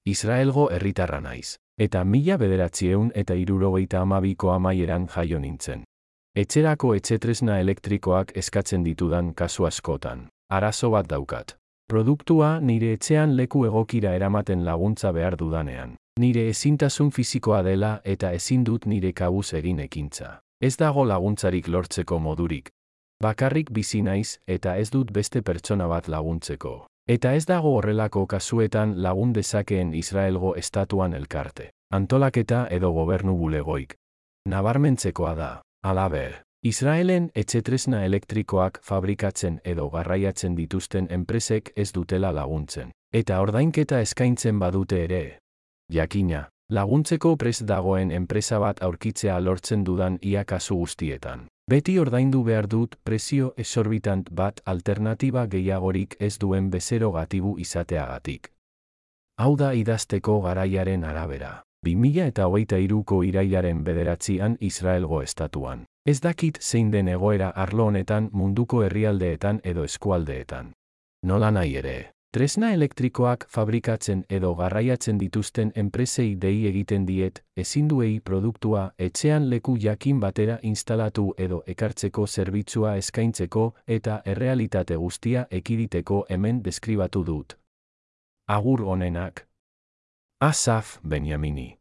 Israelgo herritarra naiz. Eta 1972ko amaieran jaio nintzen. Etxerako etxetresna elektrikoak eskatzen ditudan kasu askotan. Arazo bat daukat. Produktua nire etxean leku egokira eramaten laguntza behar dudanean. Nire ezintasun fisikoa dela eta ezin dut nire kabuz egin ekintza. Ez dago laguntzarik lortzeko modurik. Bakarrik bizi naiz eta ez dut beste pertsona bat laguntzeko. Eta ez dago horrelako kasuetan lagun dezakeen Israelgo estatuan elkarte, antolaketa edo gobernu bulegoik. Nabarmentzekoa da, halaber, Israelen etxetresna elektrikoak fabrikatzen edo garraiatzen dituzten enpresek ez dutela laguntzen. Eta ordainketa eskaintzen badute ere. Jakina, laguntzeko prest dagoen enpresa bat aurkitzea lortzen dudan ia kasu guztietan. Beti ordaindu behar dut prezio exorbitant bat alternatiba gehiagorik ez duen bezero gatibu izateagatik. Hau da idazteko garaiaren arabera. 2023ko irailaren 9an Israelgo estatuan. Ez dakit zein den egoera arlo honetan munduko herrialdeetan edo eskualdeetan. Nola nahi ere. Tresna elektrikoak fabrikatzen edo garraiatzen dituzten enpresei dei egiten diet, ezinduei produktua etxean leku jakin batera instalatu edo ekartzeko zerbitzua eskaintzeko eta errealitate guztia ekiditeko hemen deskribatu dut. Agur onenak. Asaf Benyamini.